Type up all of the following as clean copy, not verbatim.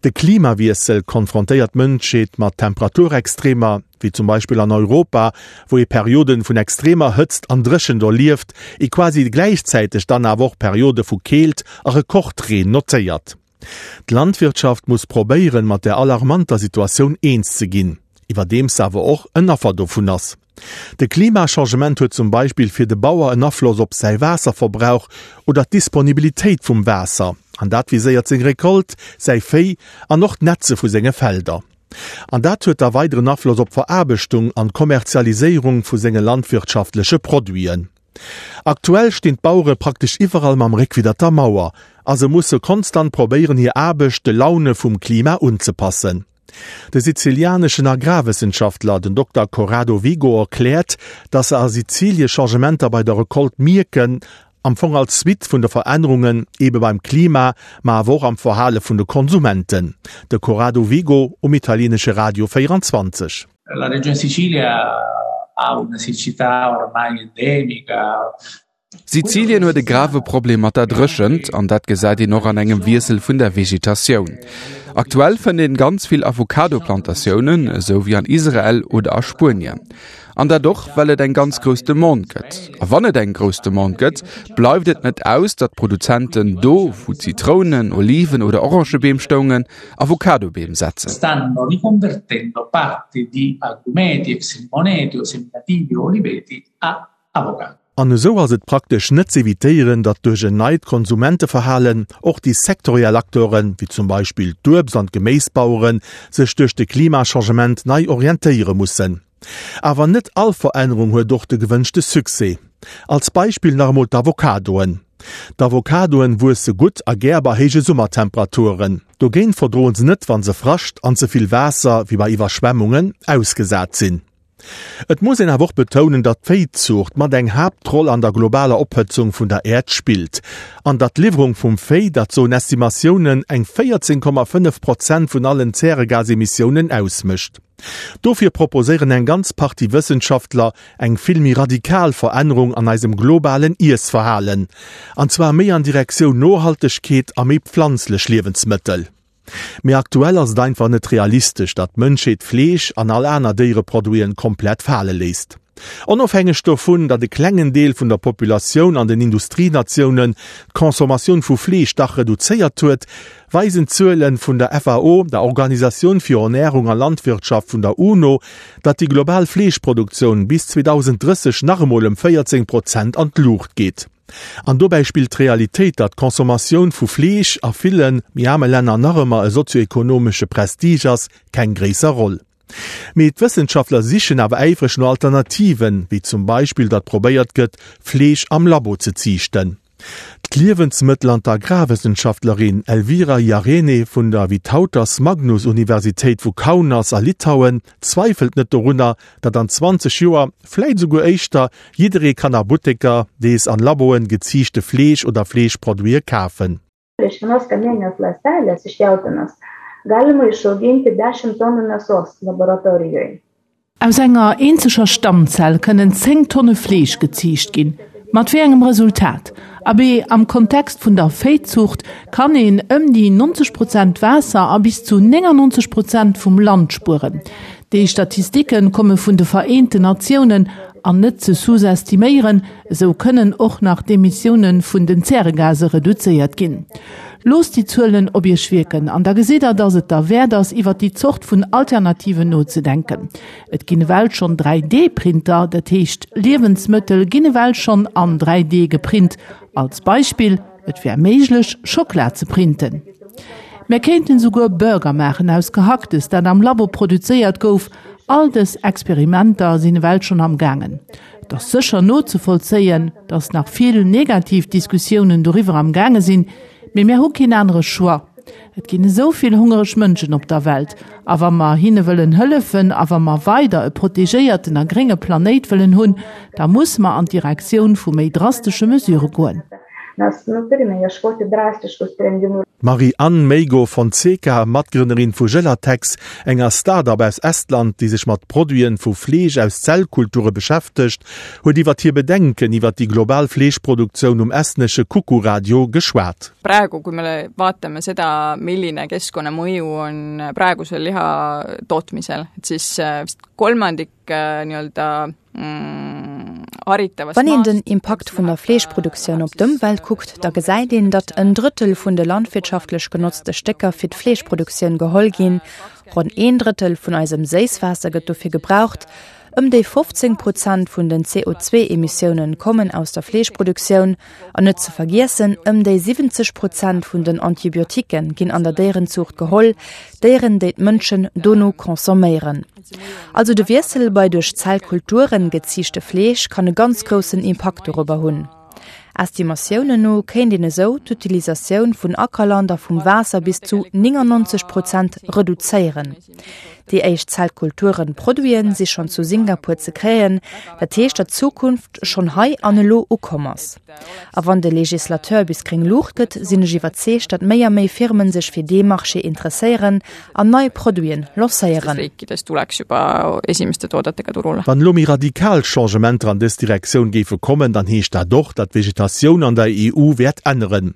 De Klimawiessel konfrontéiert d'Mënschheet mat Temperaturextremer, wéi zum Beispill an Europa, wou ee Perioden vun extremer Hëtzt an Dréchent erlieft, ee quasi gläichzäiteg dann awer och Periode vu Keelt a Rekordreen notéiert. D'Landwirtschaft muss probéieren, mat der alarmanter Situatioun eens ze ginn, iwwerdeems se awer och en Affer dovun ass. De Klimachangement huet zum Beispill fir de Bauer en Afloss op säi Waasserverbrauch oder d'Disponibilitéit vum Waasser, an dat viséiert seng Recolte, säi Véi an och d'Netze vu senge Felder. An dat huet da weideren Afloss op d'Veraarbechtung an d'Kommerzialiséierung vu senge landwirtschaftleche Produiten. Aktuell stinn d'Bauere praktesch iwwerall mam Réck widder der Mauer a se musse konstant probéieren hir Aarbecht de Laune vum Klima unzepassen. De sizilianeschen Agrarwëssenschaftler, den Dokter Corrado Vigo erkläert, datt se a Sizilie Changementer bei der Recolte mierken, am Fong als Suite vun de Verännerungen ebe beim Klima, ma awer och am Verhale vun de Konsumenten. De Corrado Vigo um italienesche Radio 24. La Regione Sicilia ha una siccità ormai endemica. Sizilien huet e grave Problem mat der Dréchent an dat gesäit een och an engem Wiessel vun der Vegetatioun. Aktuell fënnt een ganz vill Avocado-Plantatiounen, esou wéi an Israel oder a Spuenien. An dat och, well et eng ganz grouss Demande gëtt. A wann et eng grouss Demande gëtt, bleift et net aus, datt d'Produzenten do, wou Zitrounen, Oliven oder Orangebeem stoungen, Avocadobeem setzen. Stanno riconvertendo parte di agrumeti, ex limoneti o seminativi o oliveti a avocado. An esou ass et praktesch net z'evitéieren, datt duerch en neit Konsumenteverhalen och déi sektoriell Acteuren, wéi zum Beispill d'Uebst an d'Geméisbaueren, sech duerch de Klimachangement nei orientéiere mussen. Awer net all Verännerung huet och de gewënschte Succès. Als Beispill nach emol d'Avocadoen. D'Avocadoen wuesse gutt a gär bei héije Summertemperaturen. Dogéint verdroen se net wann se Frascht an ze vill Waasser, wéi bei Iwwerschwemmungen, ausgesat sinn. Et muss een awer och betounen, datt d'Véizuucht mat eng Haaptroll an der globaler Ophëtzung vun der Äerd spillt an datt d'Liwwerung vum Véi, dat soen Estimatiounen, eng 14,5 Prozent vun allen Zäregasemissiounen ausmécht. Dofir proposéieren eng ganz Partie Wëssenschaftler eng vill méi radikal Verännerung an eisem globalen Iessverhalen, an zwar méi an Direktioun Nohaltegkeet a méi pflanzlech Liewensmëttel. Mee aktuell ass et einfach net realistesch, datt d'Mënschheet Fleesch an all aner Déiereproduiten komplett fale léisst. Onofhängeg dovun, datt e klengen Deel vun der Populatioun an den Industrienatiounen d'Consommatioun vu Fleesch dach reduzéiert huet, weisen d'Zuele vun der FAO, der Organisatioun fir Ernärung a Landwirtschaft vun der UNO, datt déi global Fleeschproduktioun bis 2030 nach emol ëm 14 Prozent an d'Luucht geet. An dobäi spillt d'Realitéit, datt d'Consommatioun vu Fleesch a ville méi aarme Länner nach ëmmer e sozioekonomesche Prestige ass, keng gréisser Roll. Mee d'Wëssenschaftler sichen awer äifreg no Alternativen, wéi zum Beispill datt probéiert gëtt, Fleesch am Labo ze ziichten. D'Liewensmëttel an d'Agrarwëssenschaftlerin Elvira Jarene vun der Vytautas Magnus Universitéit vu Kaunas a Litauen zweifelt net dorunner, datt an 20 Joer, vläit esouguer éischter, jidderee kann a Butteker dees an Laboen geziichte Fleesch oder Fleeschproduite kafen. Iš vienos kamieninės ląstelės iš jautienos galima išauginti dešimt tonų mėsos laboratorijoj. Aus enger eenzeger Stammzell kënnen 10 Tonne Fleesch geziicht ginn. Mat wéi engem Resultat? Abee, am Kontext vun der Véizuucht kann een ëm déi 90 Prozent Waasser a bis zu 99 Prozent vum Land spueren. Déi Statistike komme vun de Vereenten Natiounen an net ze sous-estiméieren, Esou kënnen och nach d'Emissioune vun den Zäregase reduzéiert ginn. Loosst déi Zuelen op Iech wierken an da gesitt der, dass et derwäert ass, iwwer déi Zort vun Alternativen nozedenken. Et ginn ewell schonn 3D-Printer, dat heescht Liewensmëttel ginn ewell schonn an 3D geprint. Als Beispill, Et wär méiglech, Schockela ze printen. Mär kéinten esouguer Burger maachen aus Gehacktes, dat am Labo produzéiert gouf. All dës Experimenter sinn ewell schonn am gaangen. Et ass sécher nozevollzéien, datt nach vill negativ Diskussiounen doriwwer am gaange sinn, mee mär hu keen anere Choix. Et ginn esou vill hungereg Mënschen op der Welt, a wa mer hinne wëllen hëllefen a wa mer weider e protegéierten a grénge Planéit wëllen hunn, da musse mer an d'Direktioun vu méi drastesche Mesure goen. D'Marie-Anne Meigo Fonseca, Matgrënnerin vu Gelatex, enger Start-up aus Estland, déi sech mat Produiten vu Fleesch aus Zellkulture beschäftegt, huet iwwer hir Bedenken iwwer déi global Fleeschproduktioun um estnesche Kuku Radio geschwat. Praegu, kui me vaatame seda, milline keskkonnamõju on praegusel liha tootmisel, et siis vist kolmandik nii-öelda Wann een den Impakt vun der Fleeschproduktioun op d'Ëmwelt kuckt, da gesäit een, datt en Drëttel vun de landwirtschaftlech genotzte Stécker fir d'Fleeschproduktioun geholl ginn. Ronn een Drëttel vun eisem Séisswaasser gëtt dofir gebraucht. Ëm déi 15 Prozent vun den CO2-Emissiounen kommen aus der Fleeschproduktioun. An net ze vergiessen, ëm déi 70 Prozent vun den Antibiotiquë ginn an der Déierenzuucht geholl, Déieren, déi d'Mënschen dono consomméieren. Also de Wiessel bei duerch Zellkulturen geziichte Fleesch kann e ganz groussen Impakt dorobber hunn. Estimatiounen no kéint een esou d'Utilisatioun vun Ackerland a vum Waasser bis zu 99 Prozent reduzéieren. Déi éischt Zellkulturen-Produiten si schonn zu Singapur ze kréien, dat heescht datt d'Zukunft schonn hei an elo ukomm ass. A wann de Legislateur bis gréng Luucht gëtt, sinn ech iwwerzeegt, datt méi a méi Firmen sech fir dee Marché interesséieren an nei Produiten lancéieren. Wann elo méi radikal Changementer an dës Direktioun géife kommen, dann heescht dat och, datt d'Vegetatioun an der EU wäert änneren.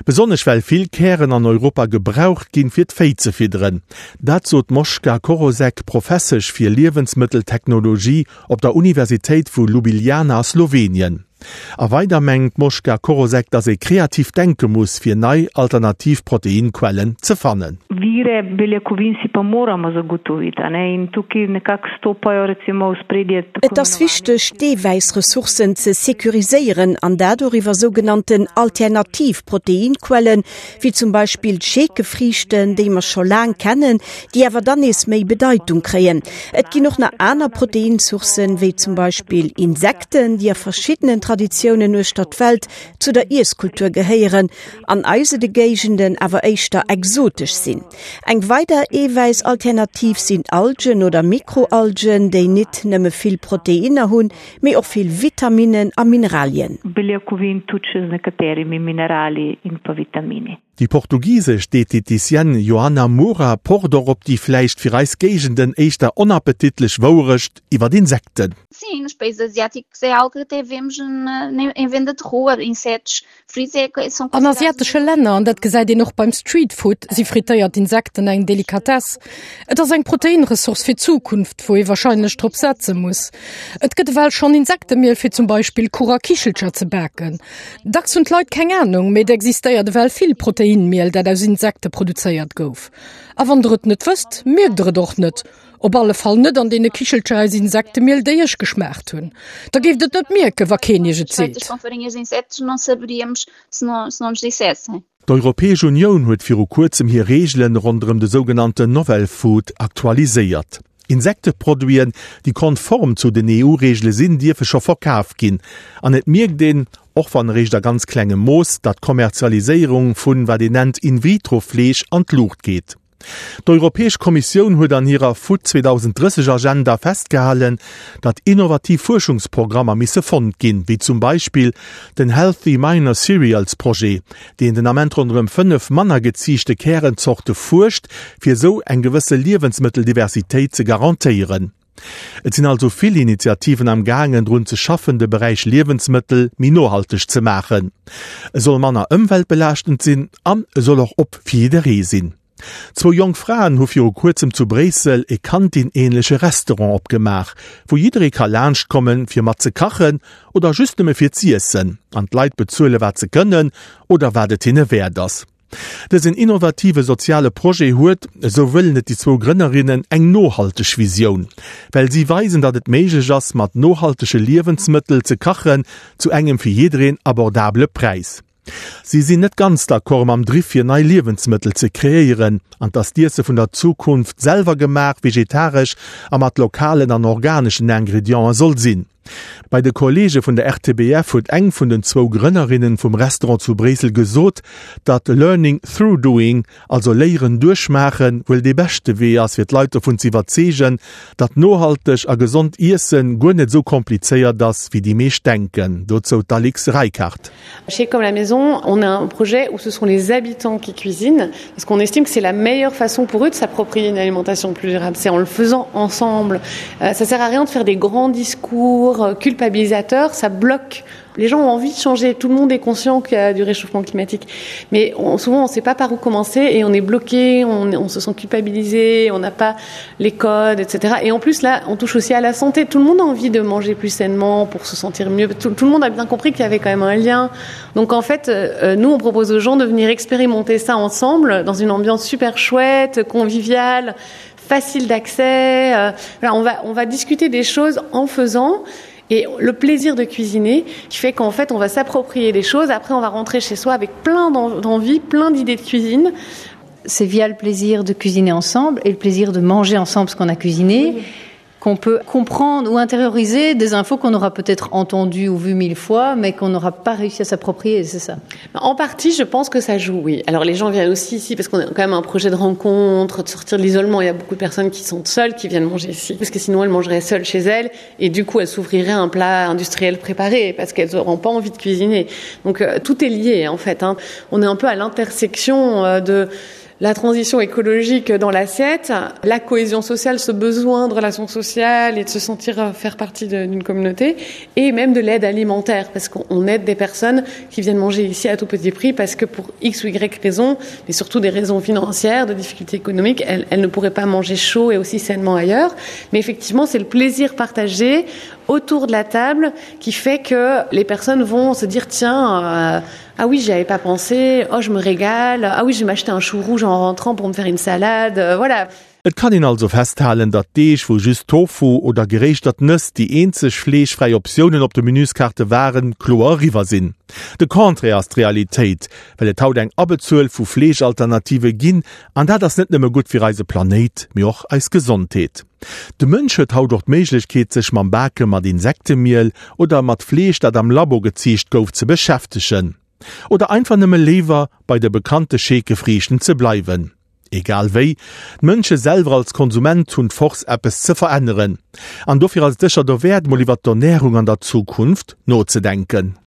Besonnesch well vill Kären an Europa gebraucht ginn, fir d'Véi ze fidderen. Dat sot d'Moschka Korosec, Professesch fir Liewensmëtteltechnologie op der Universitéit vu Ljubljana a Slowenien. A weider mengt d'Moschka Korosec, datt ee kreativ denke muss, fir nei alternativ Proteinquellen ze fannen. Vire beljakovin si pa moramo zagotoviti, a ne, in tukaj nekako stopajo recimo v ospredje tako Et ass wichteg, d'Eewäissressourcen ze securiséieren, an dat och iwwer sougenannten alternativ Proteinquellen, wéi zum Beispill d'Scheekefriichten, déi mer scho laang kennen, déi awer dann nees méi Bedeitung kréien. Et ginn och nach aner Proteinsourcen, wéi zum Beispill Insekten, déi a verschiddenen Traditiounen uechter d'Welt zu der Iesskultur gehéieren, an eise de Géigenden awer éischter exotesch sinn. Eng weider Eewäissalternativ sinn Algen oder Mikroalgen, déi nit nëmme vill Proteinner hunn, mee och vill Vitaminnen a Mineralien. Beljakovin tudi še z nekaterimi minerali in pa vitamini. Déi portugisesch Dieteticienne Joana Moura pocht och op déi vläicht fir eis Géigenden éischter onappetitlech Wouerecht iwwer Insekten. Sim, nos países asiáticos é algo que até vemos na, em venda de rua, insetos An asiatesche Länner, an dat gesäit een och beim Streetfood, si frittéiert Insekten eng Delikatess. Et ass eng Proteinressource fir d'Zukunft, wou ee warscheinlech drop setze muss. Et gëtt ewell schonn Insektemiel fir zum Beispill Kuch a Kichelcher ze baken. Dacks hunn d'Leit keng Anung, mee et existéiert ewell vill Proteinmiel, dat aus Insekte produzéiert gouf. A wann der et net wësst, mierkt der et och net. Op alle Fall net an deene Kichelcher aus Insektemiel, déi ech geschmaacht hunn. Da géift et net mierken, wa keen iech et seet. D'Europäesch Unioun huet viru kuerzem hir Reegelen ronderëm de sougenannten Novel Food aktualiséiert. Insekteproduiten, déi konform zu den EU-Reegele sinn, dierfe scho verkaf ginn. An et mierkt een, och wann eréischt a ganz klengem Mooss, datt d'Kommerzialiséierung vun, wat een nennt, In-vitro-Fleesch an d'Luucht geet. D'Europäesch Kommissioun huet an hirer Food 2030 Agenda festgehalen, datt innovativ Fuerschungsprogrammer misse fonnt ginn, wéi zum Beispill den Healthy Minor Cereals Projet, deen den Ament ronderëm 5 manner geziichte Kärenzorte fuerscht, fir esou eng gewësse Liewensmëtteldiversitéit ze garantéieren. Et sinn also vill Initiativen am gaangen drun ze schaffen de Beräich Liewensmëttel méi nohalteg ze maachen. E soll manner ëmweltbelaaschtend sinn an e soll och op fir jidderee sinn. Zwou jonk Fraen hu viru kuerzem zu Bréissel e Kantin-ähnleche Restaurant opgemaach, wou jidderee ka laanscht kommen fir mat ze kachen oder just nëmme fir z'iessen. An d'Leit bezuele wat se kënnen oder wat et hinne wäert ass. Dësen innovative soziale Projet huet, esou wëllen et déi zwou Grënnerinnen, eng nohalteg Visioun, well si weisen, datt et méiglech ass, mat nohaltege Liewensmëttel ze kachen zu engem fir jiddereen abordabele Präis. Si sinn net ganz d'accord mam Driff fir nei Liewensmëttel ze kreéieren an datt d'Iesse vun der Zukunft selwer gemaach, vegetaresch a mat lokalen an organeschen Ingrediente soll sinn. Bei de Kolleege vun der RTBF huet eng vun den zwou Grënnerinnen vum Restaurant zu Bréissel gesot, datt Learning through doing, also Léieren duerch Maachen, wuel dee beschte Wee ass fir d'Leit dovun ze iwwerzeegen, datt nohalteg a gesond Iessen guer net esou komplizéiert ass, wéi déi meescht denken. Dozou d'Alix Reichardt. Chez Comme la Maison, on a un projet où ce sont les habitants qui cuisinent parce qu'on estime que c'est la meilleure façon pour eux de s'approprier une alimentation plus durable, c'est en le faisant ensemble. Euh, ça sert à rien de faire des grands discours euh, culpabilisateurs, ça bloque les gens ont envie de changer, tout le monde est conscient qu'il y a du réchauffement climatique. Mais on, souvent on ne sait pas par où commencer et on est bloqué, on, on se sent culpabilisé, on n'a pas les codes, etc. Et en plus là, on touche aussi à la santé. Tout le monde a envie de manger plus sainement pour se sentir mieux. Tout, tout le monde a bien compris qu'il y avait quand même un lien. Donc en fait, euh, nous on propose aux gens de venir expérimenter ça ensemble dans une ambiance super chouette, conviviale, facile d'accès. Euh, voilà, on va, on va discuter des choses en faisant et le plaisir de cuisiner qui fait qu'en fait on va s'approprier les choses après on va rentrer chez soi avec plein d'envie plein d'idées de cuisine c'est via le plaisir de cuisiner ensemble et le plaisir de manger ensemble ce qu'on a cuisiné oui qu'on peut comprendre ou intérioriser des infos qu'on aura peut-être entendu ou vu mille fois mais qu'on n'aura pas réussi à s'approprier c'est ça en partie je pense que ça joue oui alors les gens viennent aussi ici parce qu'on a quand même un projet de rencontre de sortir de l'isolement il y a beaucoup de personnes qui sont seules qui viennent manger ici parce que sinon elles mangeraient seules chez elles et du coup elles s'ouvriraient un plat industriel préparé parce qu'elles n'auront pas envie de cuisiner donc euh, tout est lié en fait hein. on est un peu à l'intersection euh, de la transition écologique dans l'assiette, la cohésion sociale, ce besoin de relations sociales et de se sentir euh, faire partie d'une communauté et même de l'aide alimentaire parce qu'on aide des personnes qui viennent manger ici à tout petit prix parce que pour X ou Y raison, mais surtout des raisons financières, de difficultés économiques, elles, elles ne pourraient pas manger chaud et aussi sainement ailleurs. Mais effectivement, c'est le plaisir partagé autour de la table qui fait que les personnes vont se dire tiens euh, ah oui j'y avais pas pensé oh je me régale ah oui je vais m'acheter un chou rouge en rentrant pour me faire une salade euh, voilà Et kann een also festhalen, datt Deeg, wou just Tofu oder geréischtert Nëss déi eenzeg fleeschfräi Optiounen op de Menüskaarte waren, kloer eriwwer sinn. De Contraire ass d'Realitéit, well et haut eng Abbezuel vu Fleeschalternative ginn, an dat ass net nëmme gutt fir eise Planéit, mee och eis Gesondheet. De Mënsch huet haut och d'Méiglechkeet sech mam Bake mat Insektemiel oder mat Fleesch dat am Labo geziicht gouf ze beschäftegen. Oder einfach nëmme léiwer bei de bekannte Scheekefriichten ze bleiwen. Egal wéi, d'Mënsche selwer als Konsument hunn d'Force eppes ze veränneren. An dofir ass et sécher dowäert mol iwwer d'Ernärung an der Zukunft nozedenken.